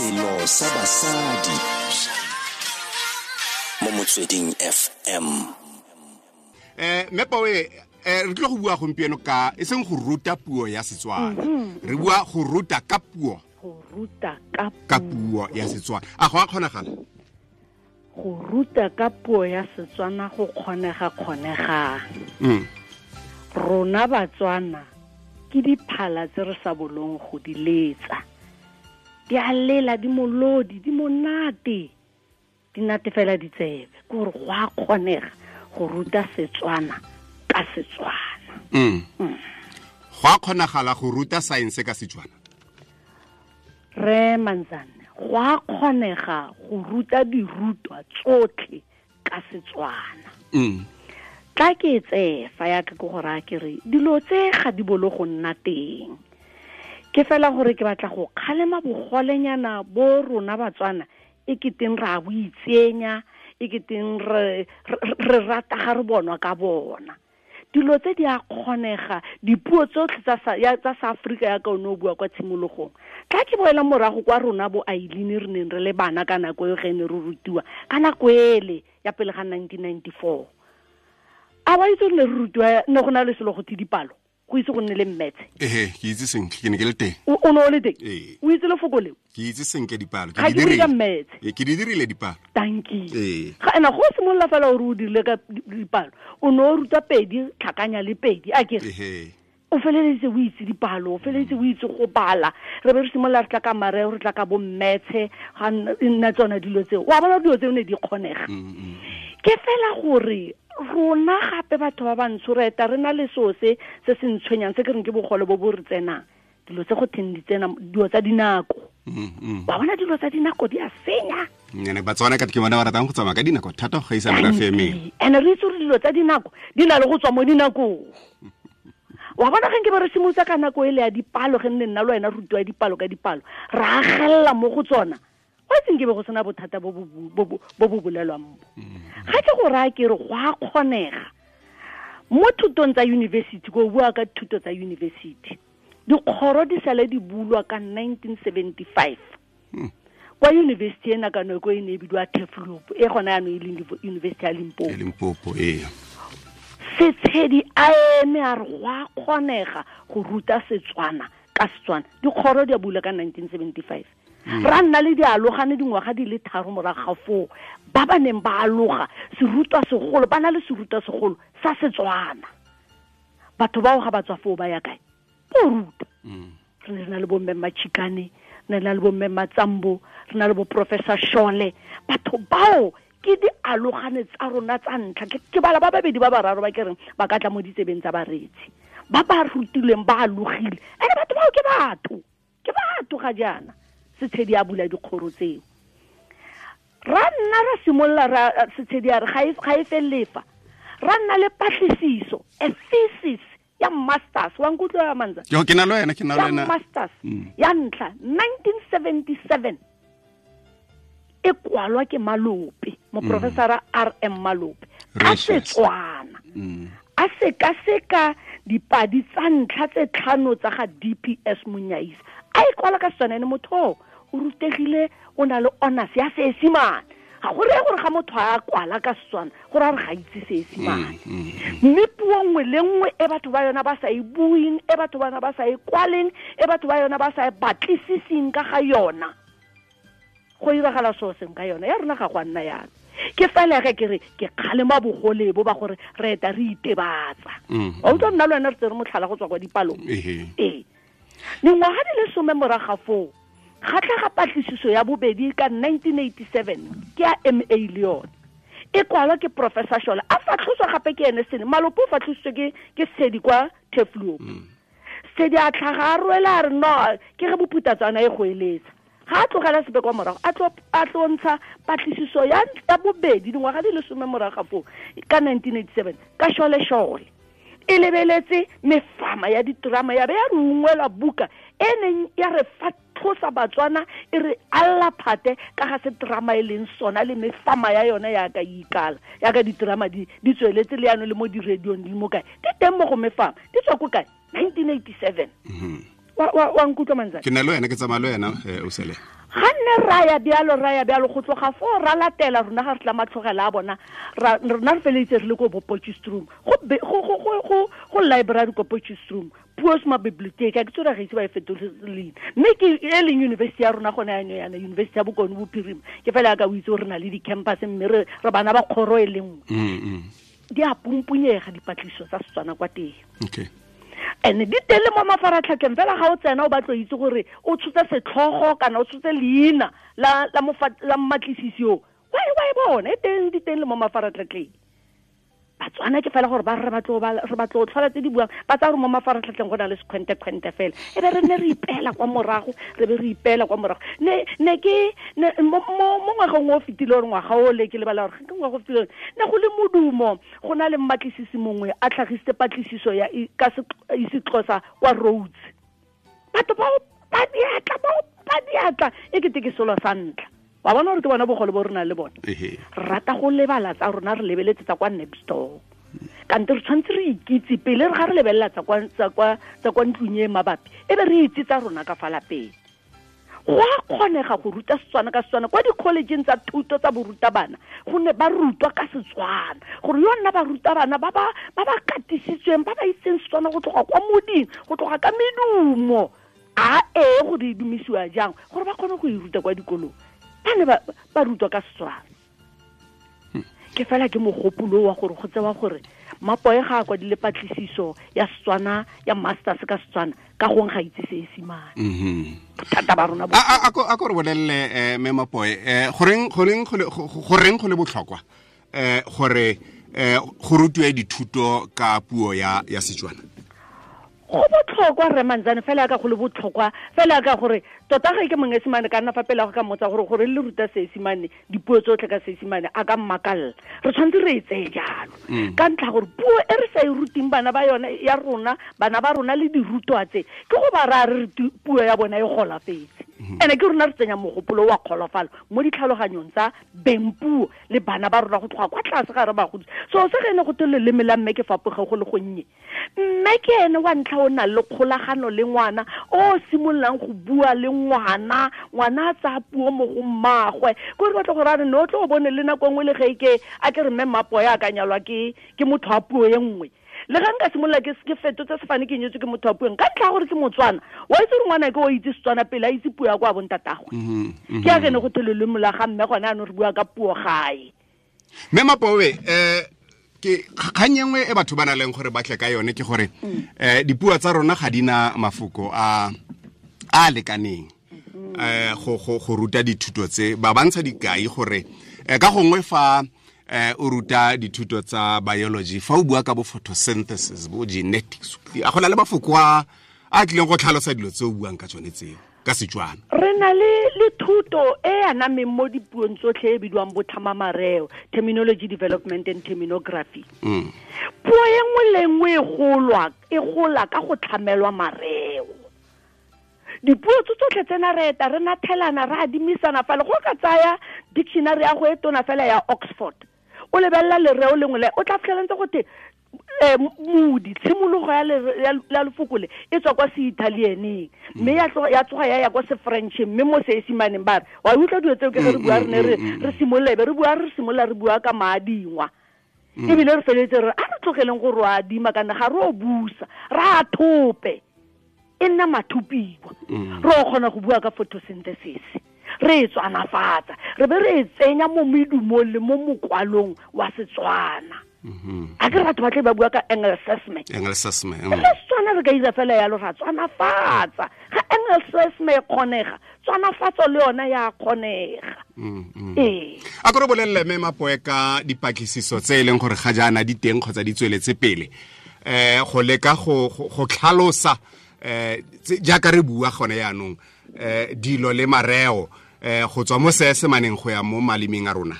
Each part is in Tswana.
Selo sa basadi mo Motsweding FM. Mme Pawe, re tlile go bua gompieno ka e seng go ruta puo ya Setswana. Re bua go ruta ka puo. Go ruta ka puo ya Setswana. A go a kgonagala? Go ruta ka puo ya Setswana go kgonega kgonegang. Rona Batswana ke diphala tse re sa bolong go di letsa. Di a lela, di molodi, di monate. Di natefela ditsebe. Ke gore go a kgonega go ruta Setswana ka Setswana. Go a kgonagala go ruta science ka Setswana? Re Manzane, go a kgonega go ruta dirutwa tsotlhe ka Setswana. Tla ke tseye fa ya ka ke go raya ke re dilo tse ga di bolo go nna teng. Ke fela gore ke batla go kgalema bogolenyana bo rona Batswana e keteng ra bo itsenya, e keteng re rata ga re bonwa ka bona. Dilo tse di a kgonega, dipuo tsotlhe tsa sa Afrika ya ka o ne o bua kwa tshimologong. Tla ke boela morago kwa rona bo Aileen re neng re le bana ka nako eo ge ne re rutiwa, ka nako ele ya pele ga 1994. A wa itse re ne re rutiwa, ne go na le selo go tse dipalo, go itse go nne le mmetse. Ehe, ke itse sentle, ke ne ke le teng. O ne o le teng? Ee. O itse lefoko leo? Ke itse sentle dipalo, ke Ga di ke bue ka dirile. mmetse. Ee, ke di dirile dipalo. Dankie. Ee. Ga ena go simolola fela gore o dirile ka dipalo, o ne o ruta pedi, tlhakanya le pedi, a ke re? Ehe. O feleleditse o itse dipalo, o feleleditse o itse go bala. Re be re simolola re tla ka mareo, re tla ka bo mmetshe, ga nna tsona dilo tseo. Wa bona dilo tseo ne di kgonega. Ke fela gore rona gape batho ba bantsho re eta re na le seo se se se ntshwenyang, se ke reng ke bogole bo bo re tsenang. Dilo tse go theng di tsena, dilo tsa dinako. Wa bona dilo tsa dinako di a senya. Ene Batswana ka ke bona ba ratang go tsamaya ka dinako thata go gaisa merafe e mengwe. Ene re itse gore dilo tsa dinako di na le go tswa mo dinakong. Wa bona ge nke ba re simolotsa ka nako ele ya dipalo, ge nne nna le wena re rutiwa dipalo ka dipalo, ra agelela mo go tsona. Wa itse nke be go sena bothata bo bo bu-, bo bo, bo bo bolelwang bo. Ga ke go raya ke re go a kgonega. Mo thutong tsa university, ko bua ka thuto tsa university, dikgoro di sale di bulwa ka 1975. Kwa university ena ka nako e ne e bidiwa Turfloop, e gona jaanong e leng University ya Limpopo. E Limpopo, ee. Setshedi a eme a re go a kgonega go ruta Setswana ka Setswana. Dikgoro di a bula ka 1975. Ra nna le dialogane dingwaga di le 3 morago ga foo, ba ba neng ba aloga serutwa segolo, ba na le serutwa segolo sa Setswana. Batho bao ga ba tswa foo ba ya kae? Bo ruta. Re ne re na le bo mme Machikane, re ne re na le bo mme Matsambo, re na le bo Professor Shole. Batho bao ke dialogane tsa rona tsa ntlha. Ke bala ba babedi ba bararo ba ke reng ba ka tla mo ditsebeng tsa bareetsi. Ba ba rutilweng ba alogile. Ene batho bao ke batho. Ke batho ga jaana. Setshedi a bula dikgoro tseo. Ra nna ra simolola ra, Setshedi a re ga e felele fa. Ra nna le patlisiso, a thesis ya masters. Wa nkutlwa ya Manza? Yo, ke na le wena, ke na le Ya wena. masters. Ya ntlha, 1977. E kwalwa ke Malope, moprofesora R M Malope. Ka Precious. Setswana. A sekaseka dipadi tsa ntlha tse tlhano tsa ga DPS Monyaisa. A e kwala ka Setswana, ene motho o, o rutegile, o na le honors ya Seesimane. Ga go reye gore ga motho a kwala ka Setswana, go raya gore ga itse Seesimane. Mme puo nngwe le nngwe e batho ba yona ba sa e bueng, e batho ba yona ba sa e kwaleng, e batho ba yona ba sa e batlisiseng ka ga yona, go iragala seo seng ka yona. Ya rona ga go a nna yalo. Ke fela ge ke re ke kgalema bogole bo ba gore re eta re itebatsa. Wa utlwa nna le wena re tsere motlhala go tswa kwa dipalong. Ee. Dingwaga di le 10 morago ga foo, ga tlhaga patlisiso ya bobedi ka 1987, ke ya MA le yone. E kwalwa ke Professor Shole. A fatlhoswa gape ke ene Sene. Malope o fatlhositswe ke Sedi kwa Turfloop. Sedi a tlhaga a rwela a re no, ke ge bophutatswana e go eletsa. Ga a tlogela sepe kwa morago, a tlo ntsha patlisiso ya bobedi dingwaga di le 10 morago ga foo, ka 1987, ka Shole Shole. E lebeletse mefama ya diterama ya be ya re ungwela buka e neng ya re fatlhosa Batswana, e re alla phate ka ga se terama e leng sona le mefama ya yona ya ka ikala, ya ka diterama di tsweletse le yano le mo di-radiong di mo kae, di teng mo go mefama, di tswa ko kae? 1987. Wa nkutlwa Manzana? Ke na le wena, ke tsamaya le wena, o sele. Ga nne ra ya bjalo go tloga foo ra latela rona ga re tla matlhogela a bona, rona re feleditse re le ko bo Potchefstroom, go library ko Potchefstroom, Puosma Bibliotheek, a ke tsore ga itse ba e fetole leina. Mme ke e leng university ya rona gone yanong yana, University ya Bokone Bophirima, ke fela yaka o itse gore re na le di-campus mme re bana ba kgoro e le nngwe. Di a pumpunyega dipatlisiso tsa Setswana kwa teng. Okay. And di teng le mo mafaratlhatlheng fela ga o tsena o batlo itse gore o tshotse setlhogo kana o tshotse leina la mmatlisisi o, wa e bona e teng, di teng le mo mafaratlhatlheng. Batswana ke fela gore ba re batlo tlhola tse di buang, ba tsaya gore mo mafaratlhatlheng go na le sekhwente-khwente fela, e be re nne re ipeela kwa morago, re be re ipeela kwa morago. Ne ke mo ngwageng o fetile, gore ngwaga o le ke lebala gore ke ngwaga o fetile, ne go le modumo, go na le mmatlisisi mongwe a tlhagisitse patlisiso ya ka isiXhosa kwa Rhodes. Batho ba diatla e kete ke selo sa ntlha. Wa bona gore ke bona bogole bo re nang le bone. Re rata go lebala tsa rona, re lebeletse tsa kwa next door. Kante re tshwanetse re ikitse pele re ga re lebelela tsa kwa ntlong e mabapi, e be re itse tsa rona ka fa lapeng. Go a kgonega go ruta Setswana ka Setswana kwa di-collegeng tsa thuto tsa borutabana, gonne ba rutwa ka Setswana, gore yo nna barutabana ba ba katisitsweng, ba ba itseng Setswana go tloga kwa moding, go tloga ka medumo a e gore e dumisiwa jang, gore ba kgone go e ruta kwa dikolong. Ba ne ba rutwa ka Setswana. Ke fela ke mogopolo wa gore go tsewa gore Mapoe ga a kwadile patlisiso ya Setswana ya masters ka Setswana, ka gong ga itse Seesimane. Bothata ba rona bo. A ko re bolelele mme Mapoe, goreng go le botlhokwa gore go rutiwe dithuto ka puo ya Setswana? Go botlhokwa rre Manzane, fela ka go le botlhokwa fela ka gore tota ga ke Monyesemane ka nna fa pele go ka mmotsa gore le ruta Seesimane, dipuo tsotlhe ka Seesimane, a ka mmakalla. Re tshwanetse re e tseye jalo ka ntlha gore puo e re sa e ruteng bana ba yone ya rona, bana ba rona le dirutwa tse, ke go ba raya re puo ya bona e golafetse. Ene ke rona re tsenya mogopolo wa kgolofalo mo ditlhaloganyong tsa beng puo le bana ba rona go tloga kwa tlase ga re ba godisa. So se ge ne go te leleme la mme ke fapoge go le gonnye, mme ke ene wa ntlha o nang le kgolagano le ngwana, o simololang go bua le ngwana, ngwana a tsaya puo mo go mmagwe. Ko re batla gore a re ne o tlo o bone le nako nngwe le ge ke a ke re mme Mmapoe a ka nyalwa ke motho wa puo e nngwe. Le ga nka simolola ke fetotse sefane ke nyetswe ke motho wa puo, ka ntlha ya gore ke Motswana, wa itse gore ngwana ke o itse Setswana pele a itse puo ya kwa bontatagwe. Ke a ke ne go te leleme la ga mme gone anong re bua ka puo gae. Mme Mapoe, ke kgang e nngwe e batho ba na leng gore ba tle ka yone ke gore dipuo tsa rona ga di na mafoko a a lekaneng go ruta dithuto tse. Ba bantsha dikai gore ka gongwe fa o ruta dithuto tsa biology, fa o bua ka bo photosynthesis, bo genetics, a go na le mafoko a tlileng go tlhalosa dilo tse o buang ka tsone tseo ka Setswana. Re na le thuto e anameng mo dipuong tsotlhe e bidiwang botlhamamareo, terminology development and terminography. Puo e nngwe le nngwe e gola ka go tlhamelwa mareo. Dipuo tse tsotlhe tsena re eta re nathelana, re adimisana fela. Go ka tsaya dictionary ya go e tona fela ya Oxford, o lebelela lereo lengwe le o tla fitlhela ntse go te modi, tshimologo ya lefoko le e tswa kwa se-Italianeng, mme ya tsoga ya ya kwa se-Frencheng, mme mo Seesimaneng ba re wa utlwa dilo tseo ke ge re bua re ne re simolola, e be re bua re simolola re bua ka maadingwa. Ebile re feleletse re a re tlogeleng go re adima kana ga re o busa, re a thope, e nna mathupiwa. Re o kgona go bua ka photosynthesis, re e tswanafatsa, re be re e tsenya mo medumong le mo mokwalong wa Setswana. A ke re batho ba tle ba bua ka Engelsesme. Engelsesme. Le Setswana re ka ira fela yalo, ra tswanafatsa. Ga Engelsesme e kgonega, tswanafatso le yona ya kgonega. Ee. A ko re bolelele mme Mapoe ka dipatlisiso tse e leng gore ga jaana di teng kgotsa di tsweletse pele, go leka go tlhalosa jaaka re bua gone yaanong dilo le mareo go tswa mo Seesemaneng go ya mo malemeng a rona.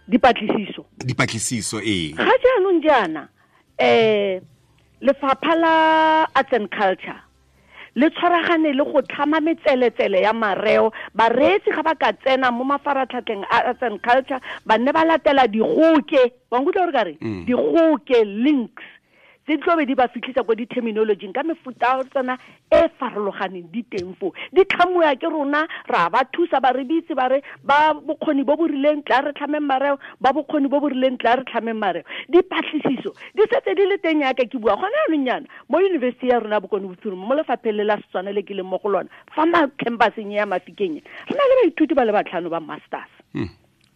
Dipatlisiso ee. Ga jaanong jaana lefapha la Arts and Culture le tshwaragane le go tlhama metseletsele ya mareo. Bareetsi ga ba ka tsena mo mafaratlhatlheng a Arts and Culture, ba nne ba latela digoke, wa nkutlwa gore ka re digoke links Tse di tlobe di ba fitlhisa ko di-terminologyng ka mefuta tsona e farologaneng di teng foo. Di tlhamuwa ke rona, ra ba thusa, ba re bitse, ba re ba bokgoni bo bo rileng tla re tlhameng mareo, ba bokgoni bo bo rileng tla re tlhameng mareo. Dipatlisiso di setse di le teng yaka ke bua gone jaanong yana mo yunibesithi ya rona Bokone Bophirima, mo lefapheng le la Setswana le ke leng mo go lona fa campuseng ya Mafikeng, re na le baithuti ba le 5 ba masters.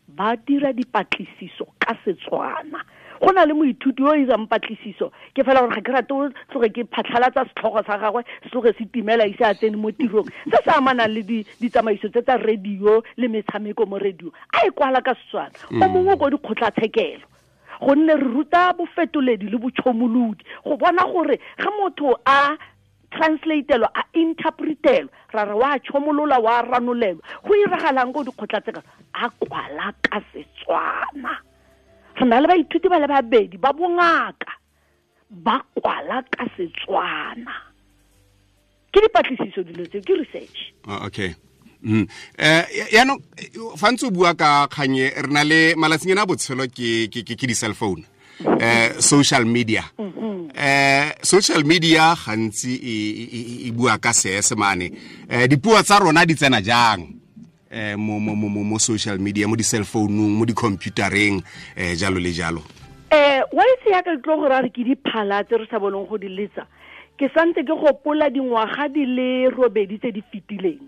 Ba dira dipatlisiso ka Setswana. Go na le moithuti yo o irang patlisiso, ke fela gore ga ke rate o tloge ke phatlhalatsa setlhogo sa gagwe, se tloge se timela ise a tsene mo tirong. Se se amanang le ditsamaiso tse tsa radio le metshameko mo radio, a e kwala ka Setswana. O mongwe ko dikgotlatshekelo, gonne re ruta bofetoledi le botšhomolodi go bona gore ge motho a translatelwa, a interpretelwa, ra re wa tšhomolola, wa ranolelwa, go iragalang ko dikgotlatshekelo, a kwala ka Setswana. Re na le baithuti ba le 2 ba bongaka ba kwala ka Setswana. Ke dipatlisiso dilo tseo, ke research. Okay. Yaanong fa ntse o bua ka kganye, re na le malatsing a botshelo ke di-cell phone, social media. Social media gantsi e bua ka Seesemane. Dipuo tsa rona di tsena jang mo social media, mo di-cell phone-ung, mo di-computereng, jalo le jalo? Wa itse yaka ke tlo go ra re ke diphala tse re sa boneng go di letsa. Ke santse ke gopola dingwaga di le 8 tse di fetileng.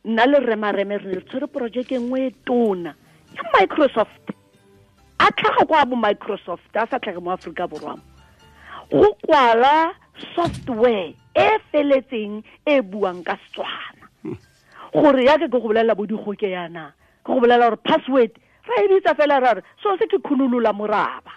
Nna le Rre Mareme re ne re tshwere projeke nngwe e tona ya Microsoft. A tlhaga kwa bo Microsoft, a sa tlhage mo Aforika Borwa. Go kwala software e feletseng e buang ka Setswana. Gore yaka ke go bolelela bo digoke yana, ke go bolelela gore password ra e bitsa fela ra re so se ke khunolola moraba.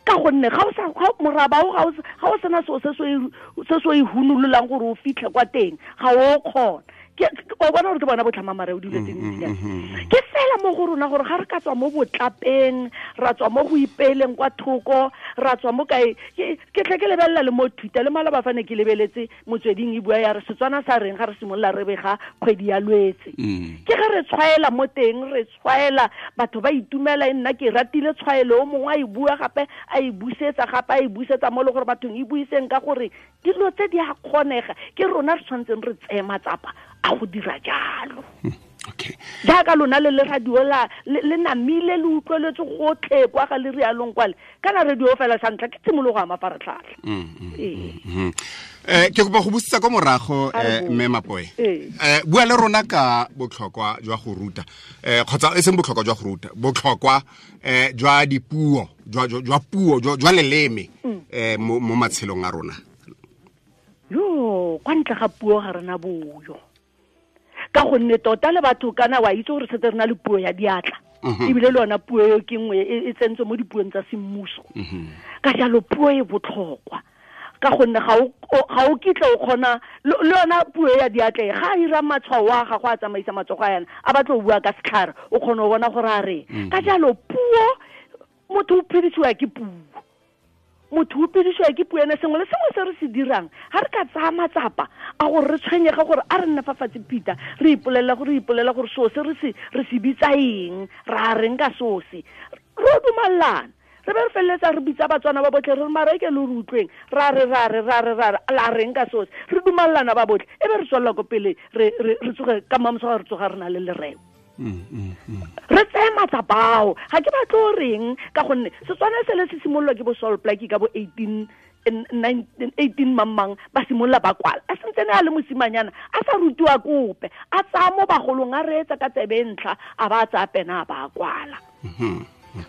Ka gonne ga o sa, ga moraba o, ga o sa, ga o sena seo se se o e hunololang gore o fitlhe kwa teng, ga o kgona. O bona gore ke bona botlhama mareo dilo tse dintsi yana. Ke fela mo go rona gore ga re ka tswa mo botlapeng, ra tswa mo go ipeeleng kwa thoko, ra tswa mo kae, ke tle ke lebelela le mo Twitter, le maloba fa ne ke lebeletse motsweding e bua ya re Setswana sa reng ga re simolola re bega kgwedi ya Lwetse. Ke ge re tshwaela mo teng, re tshwaela, batho ba itumela, e nna ke ratile tshwaelo, o mongwe a e bua gape, a e busetsa gape, a e busetsa mo le gore bathong e buiseng ka gore dilo tse di a kgonega, ke rona re tshwanetseng re tseye matsapa a go dira jalo. Okay. Jaaka lona le le radio la, le namile le utlweletse gotlhe kwa ga le rialong kwale. Kana radio fela sa ntlha ke tshimologo ya mafaratlhatlha. Ke kopa go busetsa kwa morago, A re bo. Mme Mapoe. Ee. Bua le rona ka botlhokwa jwa go ruta. Kgotsa e seng botlhokwa jwa go ruta, botlhokwa, jwa dipuo, jwa, jwa, jwa puo, jwa, jwa leleme, mo matshelong a rona. Yo, kwa ntle ga puo ga rena boyo. Ka gonne tota le batho kana wa itse gore setse re na le puo ya diatla. Ebile le yona puo eo ke nngwe e tsentswe mo dipuong tsa semmuso. Ka jalo puo e botlhokwa. Ka gonne ga o kitla o kgona, le yona puo ya diatla e, ga a ira matshwao a gagwe a tsamaisa matsogo a yana, a batla go bua ka setlhare, o kgona go bona gore a reng. Ka jalo puo, motho o phedisiwa ke puo. Motho o phedisiwa ke puo ene, sengwe le sengwe se re se dirang, ga re ka tsaya matsapa a gore re tshwenyege gore a re nne fa fatshe Peter, re ipolelela gore, re ipolelela gore seo se re se bitsa eng, ra reng ka seo se, re o dumellana. Re be re feleletsa re bitsa Batswana ba botlhe, re re mara e ke le re utlweng, ra re, ra re, ra re, ra re, la reng ka seo se, re dumellana ba botlhe, e be re tswelela ko pele, re tsoge ka mamoso ga re tsoga re na le lereo. Re tseye matsapa ao, ga ke batle o reng, ka gonne Setswana se le se simololwa ke bo Sol Plaatje ka bo eighteen, nine, eighteen mang mang, ba simolola ba kwala. A sentse ne a le mosimanyana, a sa rutiwa kope, a tsaya mo bagolong, a reetsa ka tsebe e ntlha, a ba a tsaya pena a ba a kwala.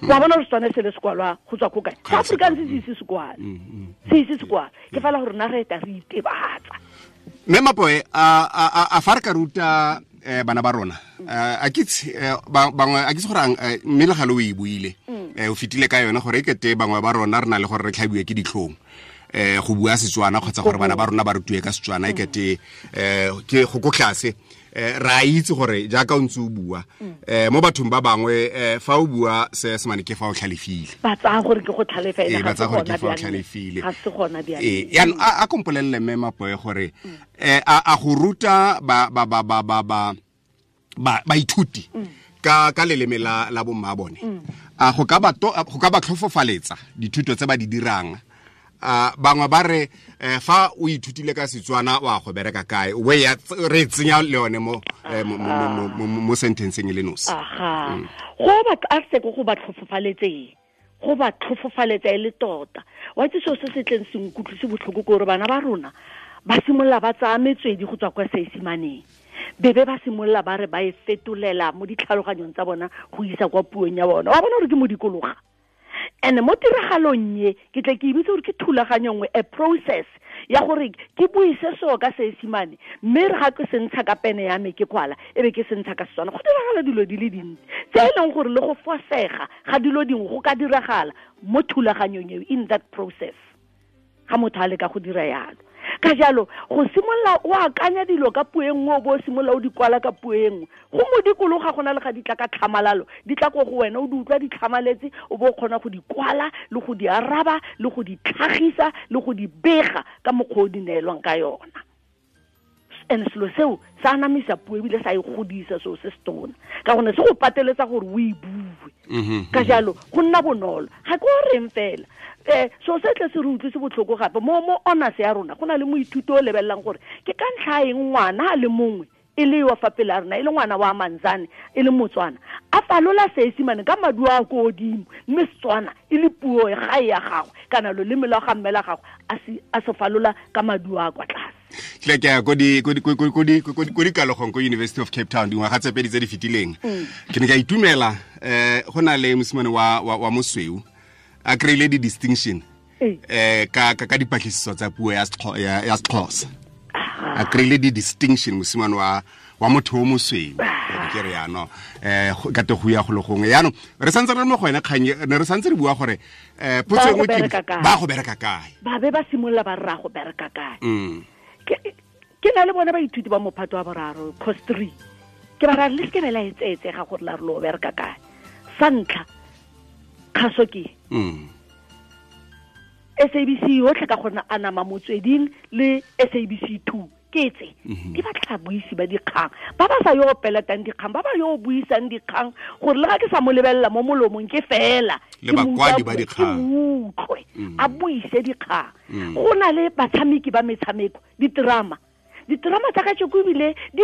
Wa bona gore Setswana se le se kwalwa go tswa ko kae? Ga se Afrikaans kwalwa. se ise se kwale. Se ise se kwale. Ke fela gore rona re eta re itebatsa. Mme Mapoe, a fa re ka ruta, bana ba rona, a ke itse, bangwe, a ke itse gore ang, mme le gale o e buile, o fetile ka yone gore e kete bangwe ba rona re na le gore re tlhabiwe ke ditlhong, go bua Setswana kgotsa gore bana ba rona ba rutiwe ka Setswana, e kete, ke go ko tlase. Re a itse gore jaaka o ntse o bua, mo bathong ba bangwe, fa o bua Seesemane ke fa o tlhalefile. Ba tsaya gore ke go tlhalefa, ene Ee, ba ga tsaya se gore ke gona fa o bjale. tlhalefile. Ga se gona bjale. Ee, jaanong, a kompolelele mme Mapoe gore, a go ruta baithuti ka leleme la bomma bone, a go ka ba to-, a go ka ba tlhofofaletsa dithuto tse ba di dirang, Bangwe ba re fa o ithutile ka Setswana wa go bereka kae, we ya re tsenya le yone mo mo sentenceng e le nosi. Aha, go ba a se go ba tlhofofaletseng, go ba tlhofofaletsa e le tota. Wa itse seo se se tleng se nkutlwise botlhoko ke gore bana ba rona ba simolola ba tsaya metswedi go tswa kwa Seesimaneng, bebe ba simolola ba re ba e fetolela mo ditlhaloganyong tsa bona go isa kwa puong ya bona. Wa bona gore ke modikologa. And mo tiragalong ye ke tle ke ibitse gore ke thulaganyo nngwe, a process ya gore ke buise seo ka Seesimane, mme re ga ke se ntsha ka pene ya me ke kwala, e be ke se ntsha ka Setswana. Go diragala dilo di le dintsi tse e leng gore le go fosega ga dilo dingwe go ka diragala mo thulaganyong eo, in that process ga motho a leka go dira yalo. Ka jalo go simolola o akanya dilo ka puo e nngwe, o bo o simolola o di kwala ka puo e nngwe, go modikologa go na le ga di tla ka tlhamalalo, di tla ko go wena o di utlwa di tlhamaletse, o bo o kgona go di kwala le go di araba le go di tlhagisa le go di bega ka mokgwa o di neelwang ka yona. And selo seo sa anamisa puo ebile sa e godisa, seo se se tona, ka gonne se go pateletsa gore o e bue. Ka jalo go nna bonolo. Ga ke o reng fela, so se tle se re utlwise botlhoko gape mo honors ya rona, go na le moithuti o lebelelang gore ke ka ntlha eng ngwana a le mongwe e le wa fa pele a rona, e le ngwana wa Manzane, e le Motswana, a falola Seesimane ka maduo a ko godimo, mme Setswana e le puo ya gae ya gagwe kana loleme lwa ga mme la gagwe a se falola ka maduo a kwa tlase. Tle ke ya ko dikalogong ko University of Cape Town dingwaga tse pedi tse di fetileng. Ke ne ka itumela, go na le mosimane wa mosweu a kry-ile di-distinction ka dipatlisiso tsa puo ya Sexhosa. A kry-ile di-distinction mosimane wa motho o mosweu, ke re yaanong ka te go ya go le gongwe. Yaanong re santse re le mo go ene kgang, ne re santse re bua gore potso e nngwe ke ba go bereka kae, ba be ba simolola ba rra go bereka kae. Ke na le bone baithuti ba mophato wa boraro, course 3, ke ba ra le seke la etseetsega gore la re lo bereka kae. Sa ntlha kgaso ke SABC yotlhe ka gona anama motsweding le SABC 2 ke tse di batla babuisi ba dikgang ba ba sa yo peletang dikgang, ba ba yo buisang dikgang, gore le ga ke sa mo lebelela mo molomong ke fela le bakwadi ba dikgang, ke utlwe a buise dikgang. Go na le batshameki ba metshameko, diterama tsa kajeko ebile di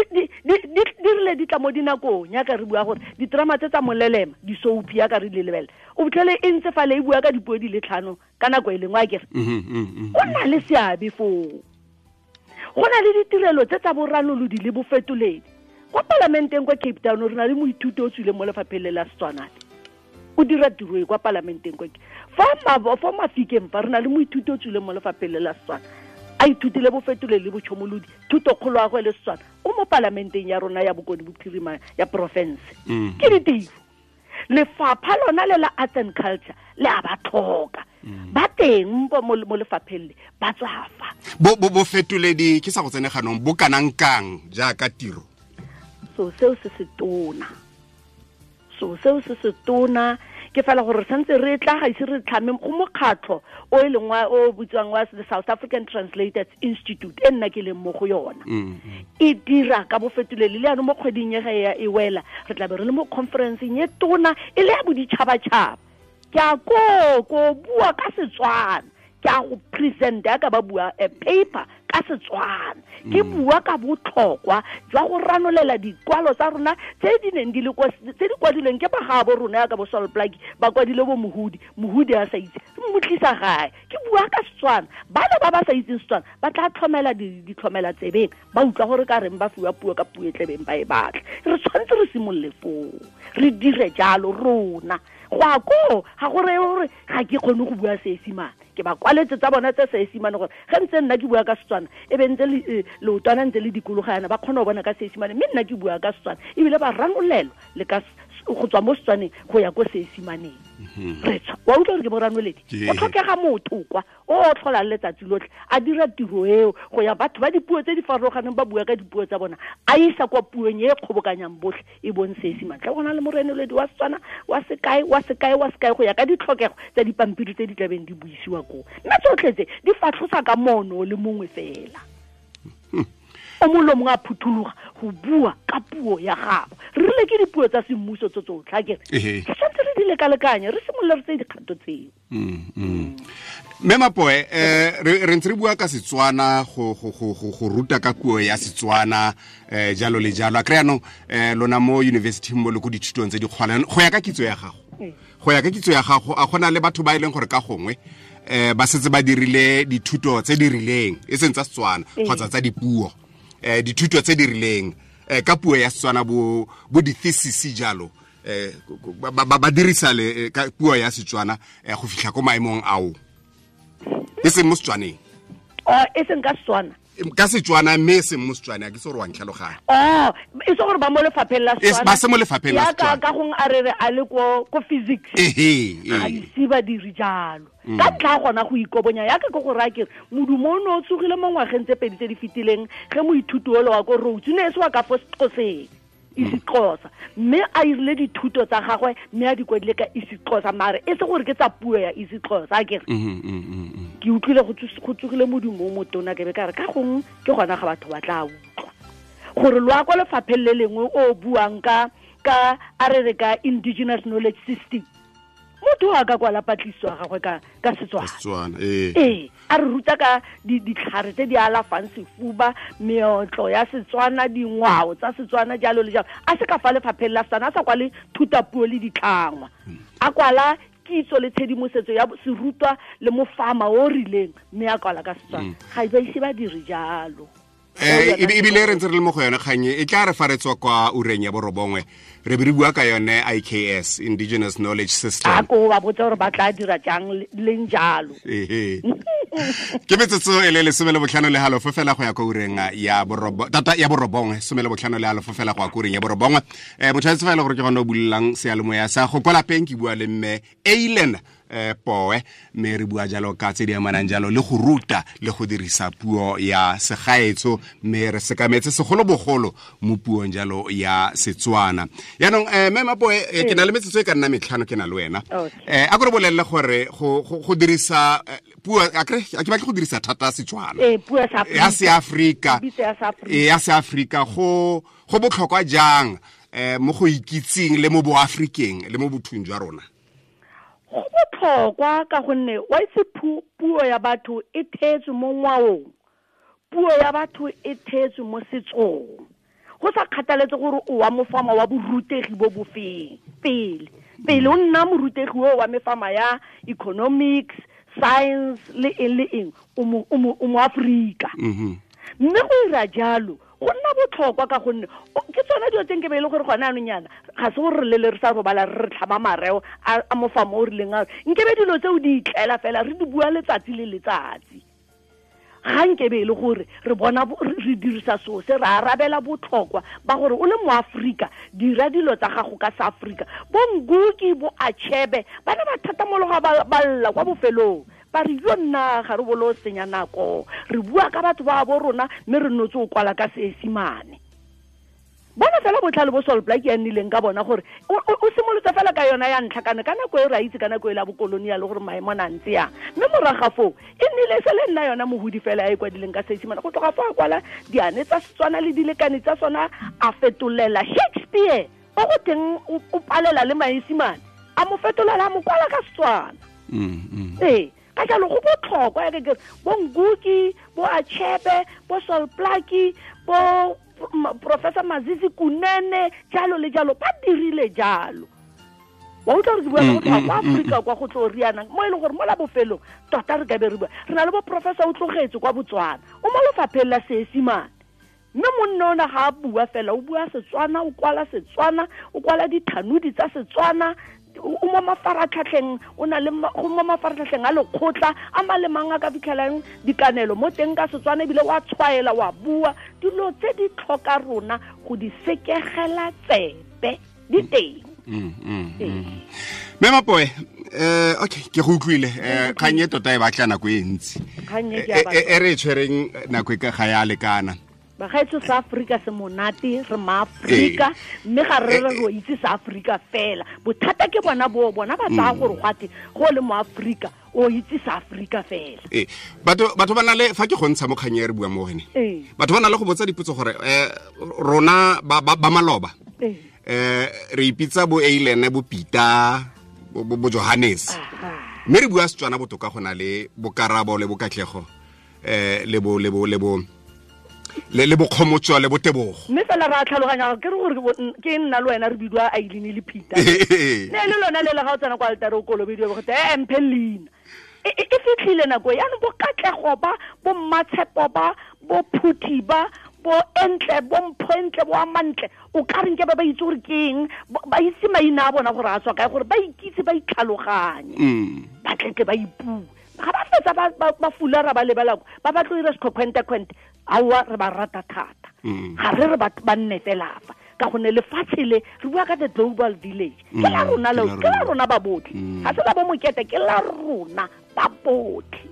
rile di tla mo dinakong yaka re bua gore diterama tse tsa molelema, di-soapie yaka re di lebelela, o fitlhele e ntse fale e bua ka dipuo di le tlhano ka nako e lengwe, akere go na le seabe foo. Go na le ditirelo tse tsa boranolodi le bofetoledi. Kwa palamenteng kwa Cape Town re na le moithuti o tswileng mo lefapheng le la Setswana, o dira tiro e kwa palamenteng kwa fa Mafikeng fa re na le moithuti o tswileng mo lefapheng le la Setswana, a ithutile bofetoledi le botšhomolodi, thutokgolo ya gagwe le Setswana, o mo palamenteng ya rona ya Bokone Bophirima ya porofense. Ke ditiro. Lefapha lona le la Arts and Culture le a ba tlhoka, ba teng mo lefapheng le ba tswafa. Bofetoledi ke sa go tsene ganong bo kanang kang jaaka tiro? So seo se se tona, so seo se se tona ke fela gore re santse re tla ga ise re tlhame go mokgatlho o e leng wa o bitswang wa the South African Translators Institute, e nna ke leng mo go yona. E dira ka bofetoledi le yaanong mo kgweding e ga e wela re tla be re le mo conferenceng e tona e le ya boditšhabatšhaba. Ke a ko bua ka Setswana, ke a go present ya ka ba bua a paper ka Setswana, ke bua ka botlhokwa jwa go ranolela dikwalo tsa rona tse di neng di le kwa, tse di kwadilweng ke bagaabo rona ya ka bo Sol Plaatje, ba kwadile bo Mohudi, Mohudi a sa itse, mo tlisa gae. Ke bua ka Setswana, bana ba ba sa itseng Setswana ba tla tlhomela ditlhomela tsebeng, ba utlwa gore ka reng ba fiwa puo ka puo e tlebeng ba e batla. Re tshwanetse re simolole foo, re dire jalo rona. Go a koo ga go reye gore ga ke kgone go bua Seesimane, ke ba kwaletse tsa bona tse Seesimane gore ge ntse nna ke bua ka Setswana e be ntse leotwana ntse le dikologa yana, ba kgona go bona ka Seesimane, mme nna ke bua ka Setswana ebile ba ranolelwa le ka go tswa mo Setswaneng go ya ko Seesimaneng. Re tswa wa utlwa gore ke boranoledi, go tlhokega motho kwa o tlholang letsatsi lotlhe a dira tiro eo go ya batho ba dipuo tse di farologaneng ba bua ka dipuo tsa bona, a isa kwa puong e kgobokanyang botlhe e bong Seesimane. Tla go na le morenoledi wa Setswana wa sekae wa sekae wa sekae go ya ka ditlhokego tsa dipampiri tse di tlabeng di buisiwa koo, mme tsotlhe tse di fatlhosa ka mono le mongwe fela. O mongwe le mongwe a phuthologa go bua ka puo ya gagwe. Re rile ke dipuo tsa semmuso tse tsotlhe, akere re tshwanetse re di lekalekanye, re simolole re tseye dikgato tseo. Mme Mapoe, re ntse re bua ka Setswana, go ruta ka puo ya Setswana, jalo le jalo. A kry anong lona mo university mo le ko dithutong tse di kgolwane, go ya ka kitso ya gago, go ya ka kitso ya gago, a gona le batho ba e leng gore ka gongwe ba setse ba dirile dithuto tse di rileng, e seng tsa Setswana kgotsa tsa dipuo, dithuto tse di rileng ka puo ya Setswana, bo di-thesis jalo, ba dirisa le ka puo ya Setswana go fitlha ko maemong ao, e seng mo Setswaneng? E seng ka Setswana. Ka Setswana, mme e seng mo Setswaneng. A ke se gore wa ntlhaloganya. E se gore ba mo lefapheng la Setswana. Ba se mo lefapheng la Setswana. Ka gongwe a re re a le ko physics. Ga ise ba dire jalo. Ka ntlha gona go ikobonya, yaka ke go raya kere modumo o ne o tsogile mo ngwageng tse pedi tse di fetileng, ge moithuti ole wa ko Rhodes o ne e se wa ka fo Sexhoseng, isiXhosa, mme a irile dithuto tsa gagwe mme a di kwadile ka isiXhosa, mare e se gore ke tsa puo ya isiXhosa. A kere ke utlwile go tsogile modumo o motona, ke be ka re ka gongwe ke gona ga batho ba tla utlwa gore lo ya kwa lefapheng le lengwe o buang ka a re re ka indigenous knowledge system, motho a ka kwala patlisiso ya gagwe ka Setswana. Ee, a re ruta ka ditlhare tse di alafang sefuba, meotlo ya Setswana, dingwao tsa Setswana, jalo le jalo. A se ka fa lefapheng la Setswana, a sa kwale thutapuo le ditlhangwa, a kwala kitso le tshedimosetso ya serutwa le mofama o rileng, mme a kwala ka Setswana. Ga ba ise ba dire jalo. Ebile re ntse re le mo go yone kganye, e tla re fa re tswa kwa ureng ya borobongwe re be re bua ka yone IKS, Indigenous Knowledge System. A ko ba botsa gore ba tla dira jang leng jalo. Ke metsotso e le 15.5 fela go ya kwa ureng ya borobongwe, 15.5 fela go ya kwa ureng ya borobongwe. Motho a itse fa e le gore ke gone o bulelang seyalemoya sa go kwa lapeng, ke bua le mme Eilen Poe, mme re bua jalo ka tse di amanang jalo le go ruta le go dirisa puo ya segaetsho, mme re sekametse segolobogolo mo puong jalo ya Setswana. Yaanong mme Mapoe, ke na le metsotso e ka nna 5 ke na le wena. A ko re bolelele gore go dirisa puo, a ke batle go dirisa thata Setswana, ya Seafrika, ya Seafrika, go botlhokwa jang mo go ikitseng le mo boafrikeng le mo bothong jwa rona? Go botlhokwa ka gonne wa itse puo ya batho e theetswe mo ngwaong, puo ya batho e theetswe mo setsong. Go sa kgathaletse gore o wa mofama wa borutegi bo bofeng pele o nna morutegi o wa mefama ya economics, science le eng le eng, o mo Afrika. Mme go ira jalo go nna botlhokwa ka gonne ke tsone dilo tse nke be e le gore gone anong yana ga se gore re lele re sa robala re re tlhama mareo a mofama o rileng ao, nkebe dilo tseo di itlela fela re di bua letsatsi le letsatsi. Ga nkebe e le gore re bona re dirisa seo se re arabela botlhokwa ba gore o le moAforika dira dilo tsa gago ka Seafrika. Bo Nguki, bo Achebe ba ne ba thatamologa ba lla kwa bofelong, ba re yo nna ga re bolo senya nako, re bua ka batho ba bo rona mme re notse o kwala ka Seesimane. Bona fela botlhale bo Sol Plaatje ya nnileng ka bona gore o simolotse fela ka yona ya ntlha kana ka nako e re a itse ka nako e la bokolonial gore maemo na ntse yang, mme morago foo e nnile se le nna yona mohudi fela ya e kwadileng ka Seesimane. Go tloga foo a kwala diane tsa Setswana le dilekane tsa sona, a fetolela Shakespeare o go teng o palela le Maesimane, a mo fetolela a mo kwala ka Setswana. Ee, ka jalo go botlhokwa ya ke bo Nguki, bo Achebe, bo Sol Plaatje, bo Professor Mazizi Kunene, jalo le jalo, ba dirile jalo. Wa utlwa gore ke bua ka go tloga kwa Afrika kwa go tlo rianang, mo e leng gore mo la bofelong tota re ka be re bua re na le bo Professor o tlogetse kwa Botswana, o mo lefapheng la Seesimane, mme monna ona ga a bua fela, o bua Setswana, o kwala Setswana, o kwala dithanodi tsa Setswana, o mo mafaratlhatlheng, o na le go mo mafaratlhatlheng a lekgotla a malemang a ka fitlhelang dikanelo mo teng ka Setswana, ebile wa tshwaela wa bua dilo tse di tlhoka rona go di sekegela tsebe di teng. Mme Mapoe, okay, ke go utlwile. Kgang e tota e batla nako e ntsi, e re e tshwereng nako e ka ga ya lekana. Bagaetsho, sa Afrika se monate, re maAfrika, mme ga re re ro itse sa Afrika fela. Bothata ke bona bo bona ba tsaya gore gwate go le mo Afrika o itse sa Afrika fela. Batho ba na le fa ke go ntsha mo kgang e re bua mo gone, batho ba na le go botsa dipotso gore rona ba maloba re ipitsa bo Eilen, bo Peter, bo Johannes. Mme re bua Setswana botoka go na le bokarabo le bokatlego le bo le bo le bo le le bokgomotso le botebogo. Mme fela ra tlhaloganya ke re gore ke nna le wena re bidiwa Aileen le Peter. Ne le lona le le ga o tsena kwa altare o kolobediwa go te mphe leina. E fitlhile nako yaanong bo katlego ba, bo mmatshepo ba, bo phuthi ba, bo entle, bo mpho entle, bo amantle, o ka reng ke ba itse gore ke eng, ba itse maina a bona gore a tswa kae, gore ba ikitse, ba itlhaloganye, ba tletle ba ipue. Ga ba fetsa ba fulara ba lebela ba ba tlo ira sekhwente-khwente, aowa re ba rata thata. Ga re re ba nne fela fa, ka gonne lefatshe le re bua ka the global village, ke la rona leo, ke la rona ba botlhe, ga se la bo mokete, ke la rona ba botlhe.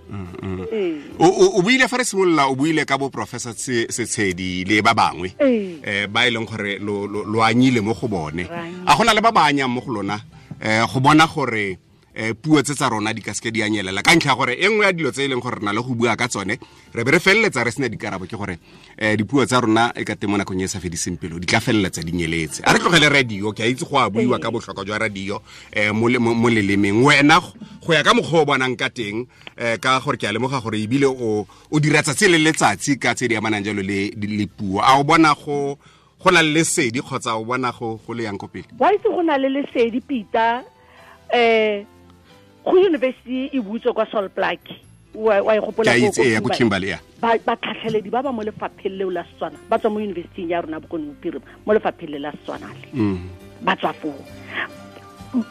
O buile fa re simolola, o buile ka bo Professor Setshedi le ba bangwe ba e leng gore lo anyile mo go bone. A gona le ba ba anyang mo go lona go bona gore puo tse tsa rona di ka seke di anyelela, ka ntlha gore e nngwe ya dilo tse e leng gore re na le go bua ka tsone re be re feleletsa re sena dikarabo, ke gore dipuo tsa rona e ka teng mo nakong e sa fediseng pelo di tla feleletsa di nyeletse. A re tlogele radio, ke a itse go a buiwa ka botlhokwa jwa radio mo lelemeng. Wena go ya ka mokgwa o bonang ka teng, ka gore ke a lemoga gore ebile o dira tsatsi le letsatsi ka tse di amanang jalo le puo, a o bona go na le lesedi kgotsa o bona go le yang ko pele? Wa itse go na le lesedi, Peter. Go university e butswe kwa Sol Plaatje, wa e gopola ko Kimberley, ya batlhatlheledi ba ba mo lefapheng leo la Setswana ba tswa mo university ya rona Bokone Bophirima, mo lefapheng le la Setswana le ba tswa foo.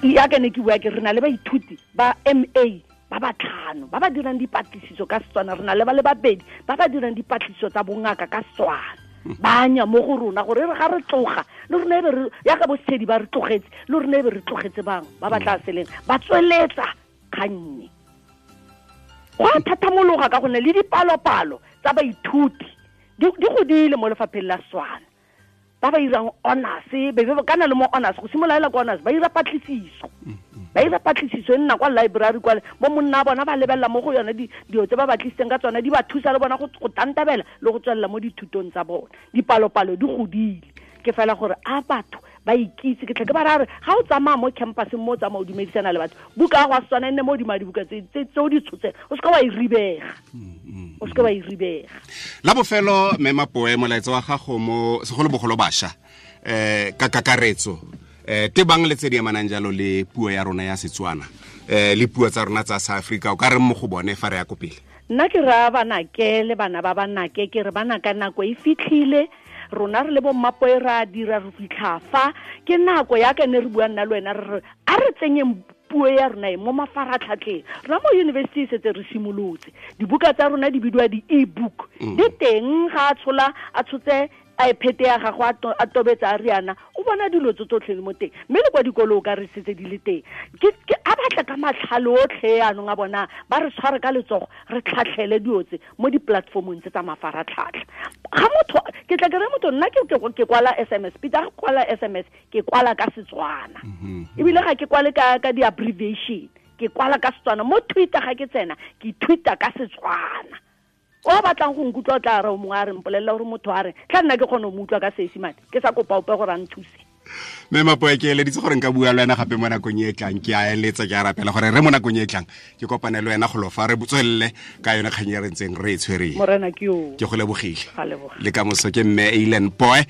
Ya ke ne ke bua ke re na le baithuti ba MA ba batlhano ba ba dirang dipatlisiso ka Setswana, re na le ba le babedi ba ba dirang dipatlisiso tsa bongaka ka Setswana. Ba anya mo go rona gore re ga re tloga le rona e be re ya ka bosetshedi ba re tlogetse, le rona e be re tlogetse bangwe ba ba tla seleng ba tsweletsa kgannye. Go a thathamologa ka gonne le dipalopalo tsa baithuti di godile mo lefapheng la Setswana, ba ba irang honors, be kana le mo honors go simolola kwa honors ba ira patlisiso, ba ira patlisiso e nna kwa library kwa bo monna bona ba lebelela mo go yone dilo tse ba batlisitseng ka tsona di ba thusa le bona go tantabela le go tswelela mo dithutong tsa bona. Dipalopalo di godile, ke fela gore a batho ba ikitse. Ke tle ke ba ra re ga o tsamaya mo campuseng mo o tsamaya o dumedisana le batho, buka ya go a Setswana e nne mo godimo ga dibuka tse o di tshotseng, o seka wa e ribega, o seka wa e ribega. La bofelo, mme Mapoe, molaetsa wa gago mo segolobogolo bašwa ka kakaretso tebang le tse di amanang jalo le puo ya rona ya Setswana le puo tsa rona tsa South Africa, o ka reng mo go bone fa re ya ko pele? Nna ke raya banake le bana ba banake, ke re bana ka nako e fitlhile, rona re le bo Mmapoe ra dira re fitlha fa, ke nako ya ka ne re bua nna le wena re re a re tsenyeng puo ya rona e mo mafaratlhatlheng. Rona mo university e setse re simolotse, dibuka tsa rona di bidiwa di-e-book, di teng ga a tshola a tshotse iPad ya gagwe a tobetsa a riana, o bona dilo tse tsotlhe mo teng, mme le kwa dikolo o ka re setse di le teng. Ke a batla ka matlhale otlhe anong a bona ba re tshware ka letsogo re tlhatlhele dilo tse mo di-platformong tse tsa mafaratlhatlha. Ga motho ke tla ke re motho nna ke kwala SMS, Peter ga kwala SMS ke kwala ka Setswana, ebile ga ke kwale ka di-abbreviation, ke kwala ka Setswana. Mo Twitter ga ke tsena ke tweeta ka Setswana. O batlang go nkutlwa o tla re o mongwe a re mpolelela gore motho a re tla nna ke kgone go mo utlwa ka Seesimane, ke sa kopa ope gore a nthuse. Mme Mapoe, ke eleditse gore nka bua le wena gape mo nakong e tlang, ke a eletsa, ke a rapela gore re mo nakong e tlang ke kopane le wena golo fa re tswelele ka yone kgang e re ntseng re e tshwereng. Morena ke yo. Ke go lebogile. Le ka moso ke mme Eileen Poe,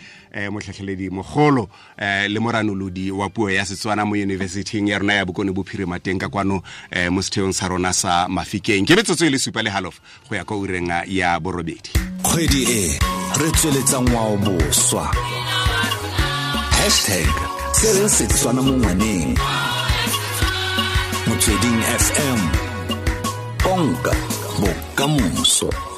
motlhatlheledi mogolo le moranolodi wa puo ya Setswana mo university-ing ya rona ya Bokone Bophirima teng ka kwano mo setheong sa rona sa Mafikeng. Ke metsotso e le 7:30 go ya kwa ureng ya 8. Kgwedi e re tsweletsa ngwao boswa. Hashtag se re Setswana mo ngwaneng. Motsweding FM. Konka bokamoso.